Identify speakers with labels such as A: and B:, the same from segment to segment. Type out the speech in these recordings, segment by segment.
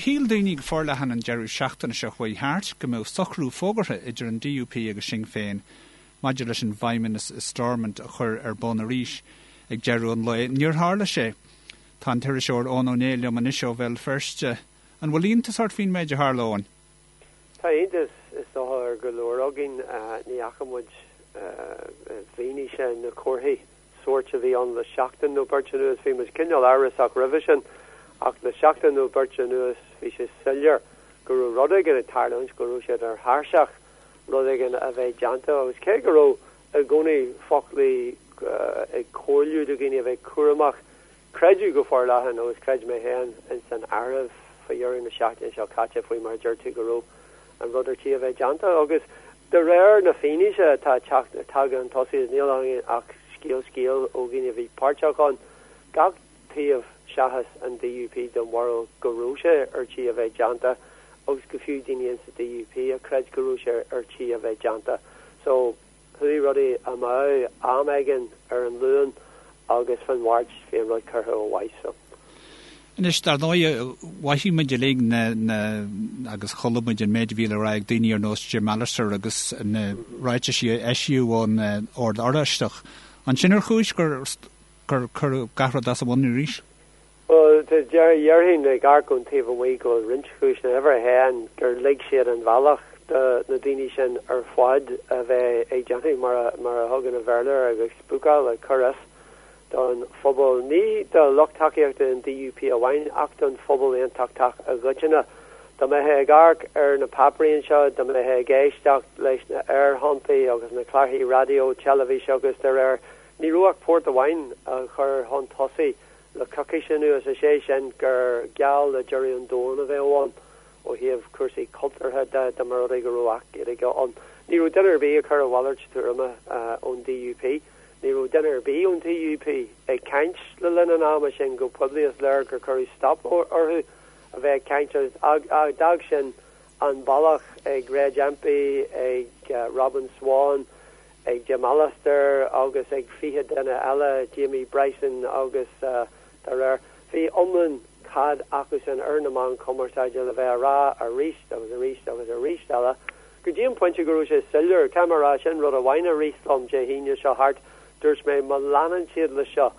A: Shíl daoine go forleathan an deireadh seachtaine seo chuaigh thart go mbeadh socrú fógartha idir an DUP agus Sinn Féin maidir leis an bhFeidhmeannas i Stormont a chur ar bun arís ag deireadh an lae. Níor tharla sé. Tá an t-iriseoir Eoin Ó Néill liom anois ó Bhéal Feirste. An bhfuil iontas ort faoin méid a tharla, Eoin?
B: Tá iontas is dócha ar go leor againn. Ní fhaca muid i bhfianaise na comharthaí sóirt a bhí ann le seachtain nó beirt anuas. Bhí muid cineál amhrasach roimhe sin ach le seachtain nó beirt anuas bhí sé soiléir go raibh rud éigin ag tarlúint, go raibh siad ar thairseach rud éigin a bheith déanta agus cé go raibh i gcónaí foclaí ag comhairliú do dhaoine a bheith cúramach, Creideadh go forleathan, agus chreid mé féin ins an áireamh, faoi dheireadh na seachtaine seo caite, faoi mar a deir tú, go raibh an rud ar tí a bheith déanta. Agus de réir na fianaise atá tagtha chun tosaigh, is níl againn ach scéal scéil ó dhaoine a bhí páirteach ann, gach taobh seachas an DUP den bharúil go raibh sé ar tí a bheith déanta, agus go fiú daoine ins an DUP a chreid go raibh sé ar tí a bheith déanta. So. Chuaigh rudaí amú am éigin ar an Luan agus fán Mháirt bhí an rud curtha ó mhaith so.
A: Anois, dar ndóigh, mhothaigh muid uilig na, na, agus chuala muid an méid a bhí le rá ag daoine ar nós Jim Allister agus na ráitisí a eisíodh ón Ord Oráisteach. An sin ar chúis gur, gur cuireadh gach rud as a bhun arís?
B: Bhuel, déarfainn ag amharc ón taobh amuigh go bhfuil roinnt chúiseanna. Uimhir a haon, gur lig siad an bhealach do na daoine sin ar fad a bheith ag déanamh mar a mar a thugann an Bhéarla air, ag spúcáil, ag cur as don phobal. Ní do lucht tacaíochta an DUP amháin ach don phobal aontachtach i gcoitinne. Dá mbeifeá ag amharc ar na páipéirí anseo, dá mbeifeá ag éisteacht leis na aerthonntaí agus na clárthaí raidió, teilifíse agus dá réir, ní raibh ach port amháin á chur chun tosaigh Le coicís anuas, is é sin gur geall le deireadh an domhain a bheadh ann ó thaobh cúrsaí cultúrtha de dá mba rud é go raibh Acht Gaeilge ann. Ní raibh duine ar bith ag cur a mhalairt tuairime ón DUP. Ní raibh duine ar bith ón DUP ag caint le linn an ama sin go poiblí. Is léir gur cuireadh stop orthu a bheith ag caint agus d'fhág sin an bealach ag Reg Empey, ag Robin Swann, ag Jim Allister agus ag 20 duine eile, Jamie Bryson agus dá réir. Bhí iomlán cead acusan ar na meáin chumarsáide le bheith á rá arís agus arís agus arís eile go dtí an pointe go raibh sé soiléir. Caithfidh mé a rá, sin rud amháin a rith liom Dé hAoine seo thart, dúirt mé má leanann siad le seo,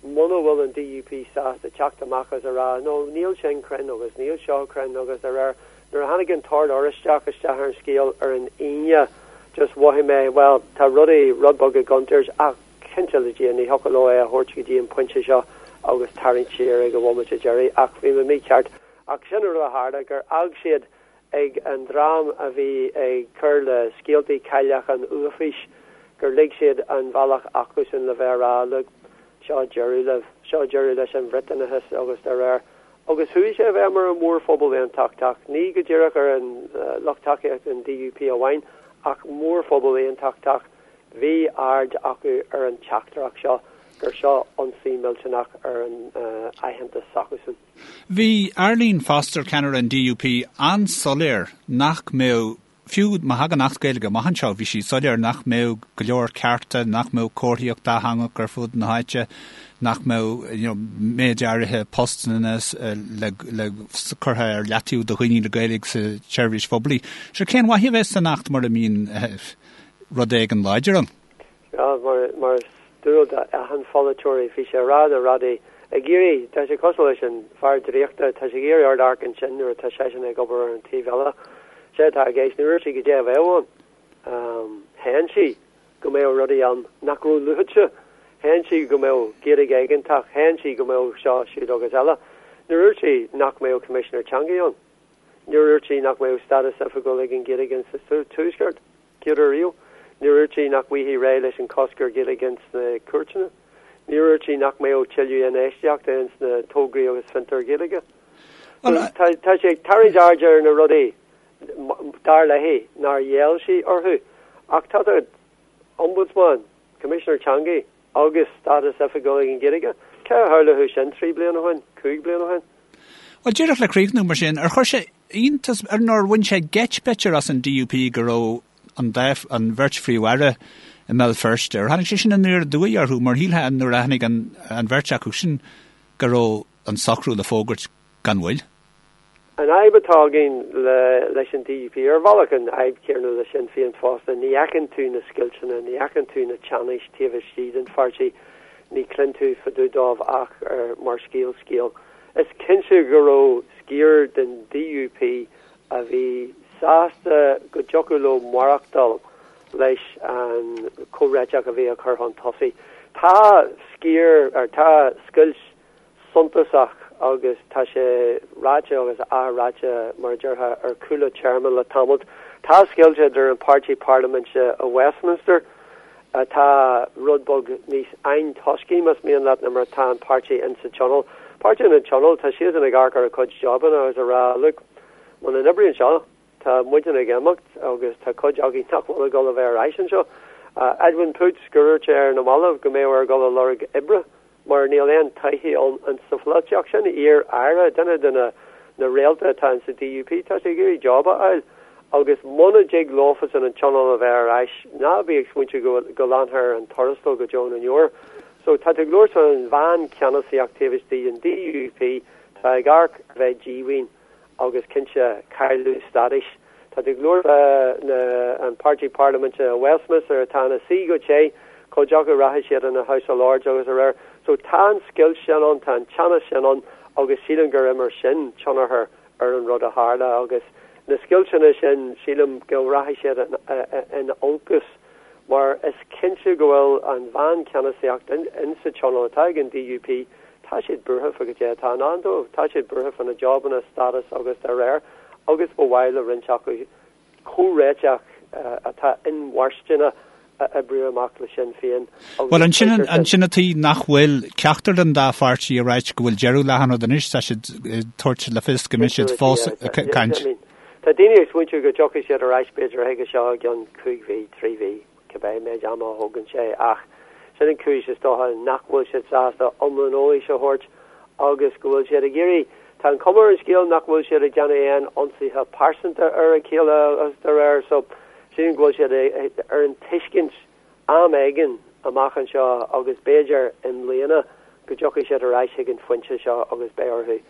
B: muna bhfuil an DUP sásta teacht amach agus a rá no níl sin cruinn agus níl seo cruinn agus dá réir, nuair a tháinig an tOrd Oráisteach isteach ar an scéal ar an Aoine just mhothaigh mé bhuel tá rudaí rud beag i gcontúirt ach cinnte le Dia ní thiocfadh leo é a thabhairt go dtí an pointe seo agus tarraingt siar ag an bhomaite deiridh ach bhí mé mícheart ach sin an rud a tharla gur fhág siad ag an dream a bhí ag cur le scéaltaí cailleach an uafáis gur lig siad an bhealach acusan le bheith a rá look, seo deireadh libh, seo deireadh leis an Bhriotanachas agus dá réir. Agus chuaigh sé i bhfeidhm ar an mhórphobal aontachtach, ní go díreach ar an lucht tacaíochta an DUP amháin ach mórphobal aontachtach, bhí aird acu ar an teachtaireacht seo gur seo ionsaí millteanach ar an aitheantas s'acusan.
A: Bhí Arlene Foster, ceannaire an DUP, an-soiléir nach mbeadh, fiú má thagann Acht Gaeilge amach anseo, bhí sí soiléir nach mbeadh go leor cearta, nach mbeadh comharthaíocht dátheangach ar fud na háite, nach mbeadh you know, méid áirithe postanna le, le curtha ar leataobh do dhaoine le Gaeilge sa tseirbhís phoiblí. So cén mhaith a bheas san Acht mura mbíonn eh, rud éigin láidir ann?
B: Sea, mar is dual d'achan pholaiteoirí, bhí sé ag rá na rudaí, ag iarraidh, tá sé cosúil leis an fear draíochta, tá sé ag iarraidh ort amharc ansin nuair atá seisean ag obair ar an taobh eile. Sé atá i gceist, níor dhúirt sí goidé a bheadh ann. Shéan sí go mbeadh rudaí ann nach raibh luaite. Shéan sí go mbeadh Gaeilge éigeantach, shéan sí go mbeadh seo, siúd agus eile. Níor dhúirt sí nach mbeadh Coimisinéir Teanga ann. Níor dhúirt sí nach mbeadh stádas oifigiúil ag an Ghaeilge sa Tuaisceart. Céad uair riamh. Níor dhúirt sí nach bhfaighfí réidh leis an cosc ar Ghaeilge ins na cúirteanna. Níor dhúirt sí nach mbeadh tuilleadh infheistíochta ins na tograí agus fiontair Ghaeilge. So, tá, tá sí ag tarraingt aird ar na rudaí, dar léi, nár ghéill sí orthu. Ach tá tá Ombudsman, Coimisinéir Teanga agus stádas oifigiúil ag an Ghaeilge. Cé a shamhlódh sin 3 bliana ó shin, 5 bliana ó shin?
A: Bhuel, díreach le críochnú mar sin, ar chuir sé iontas ar nó ar bhain sé geit b'fhéidir as an DUP go raibh an dá, an bheirt Phríomh-Aire i mBéal Feirste? Ar tháinig sé sin aniar aduaidh orthu mar shílfeá nuair a tháinig an, an bheirt acu sin go raibh an socrú le fógairt gan mhoill?
B: An fhadhb atá againn leis an DUP, ar bhealach an fhadhb chéanna le Sinn Féin fosta, ní fheiceann tú na scoilteanna, ní fheiceann tú na teannais taobh istigh den pháirtí, ní chluin tú fá dtaobh dóibh ach mar scéal scéil. Is cinnte go raibh sciar den DUP a bhí sásta go dtiocfadh leo maireachtáil leis an comhréiteach a bhí á chur chun tosaigh. Tá sciar, ar tá scoilt suntasach agus tá sé ráite agus athráite, mar a déarfá, ar chúla téarma le tamalt. Tá scoilt idir an páirtí parlaiminte i Westminster, atá rud beag níos antoiscí, más mian leat, ná mar atá an páirtí in sa Tionól. Páirtí in an Tionól, tá siadsan ag amharc ar a cuid jabanna agus ag rá, look, muna n-oibríonn seo, tá muidne ag imeacht agus tá cuid againn nach bhfuil ag dul a bheith ar ais anseo. Edwin Poots, gur dhúirt sé ar na mallaibh go mbeadh air dul a lorg oibre mar níl aon todhchaí ann in sa pholaitíocht. Sin iar-aire, duine de na na réalta atá in sa DUP, tá sé ag iarraidh job a fháil agus muna dtig leofasan an Tionól a bheith ar ais, ná bí ag smaointiú go go leanfar ar an tuarastal go deo na ndeor. So tá tú ag labhairt faoin mheáncheannasaíocht taobh istigh den DUP, tá ag amharc a bheith díomhaoin. agus cinnte cailleadh stádais. Tá tú ag labhairt fá an páirtí parlaiminte i Westminster atá ina suí go te, cuid acu rachaidh siad ina House of Lords agus dá réir. So tá an scoilt sin ann, tá an teannas sin ann agus sílim gur imir sin tionchar ar an rud a tharla agus na scoilteanna sin sílim go rachaidh siad in olcas mar is cinnte go bhfuil an mheáncheannasaíocht in sa tionól atá ag an DUP Tá siad buartha fá goidé atá i ndán dóibh. Tá siad buartha fá na jobanna, stádas agus dá réir, agus ba mhaith le roinnt acu comhréiteach atá inmharthana a oibriú amach le Sinn Féin
A: agus Bhuel, ansin, ansin an tuige nach bhfuil ceachtar den dá pháirtí ag ráit go bhfuil deireadh le han rud anois, tá siad ag tabhairt le fios go mbeidh siad fós ag caint.
B: Tá daoine ag smaointiú go dtiocfaidh siad ar ais b'fhéidir chuige seo i gceann chúig mhí, trí mhí. cibé méid ama a thógann sé, ach sin an chúis is dócha nach bhfuil siad sásta iomlán eolais a thabhairt agus go bhfuil siad ag iarraidh, tá an chuma ar an scéal nach bhfuil siad ag déanamh aon ionsaithe pearsanta ar a chéile agus dá réir, so sílim go bhfuil siad ar an tuiscint am éigin amach anseo agus b'fhéidir i mbliana go dtiocfaidh siad ar ais chuig an phointe seo agus beidh orthu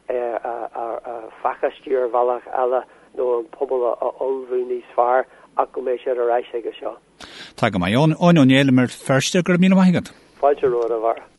B: a phacáistiú ar bhealach eile nó an pobal a ullmhú níos fearr ach go mbeidh siad ar ais chuige seo.
A: Tá go maith. Eoin Ó Néill i mBéal Feirste, go raibh míle maith agat.
B: Fáilte romhat, a Bharra.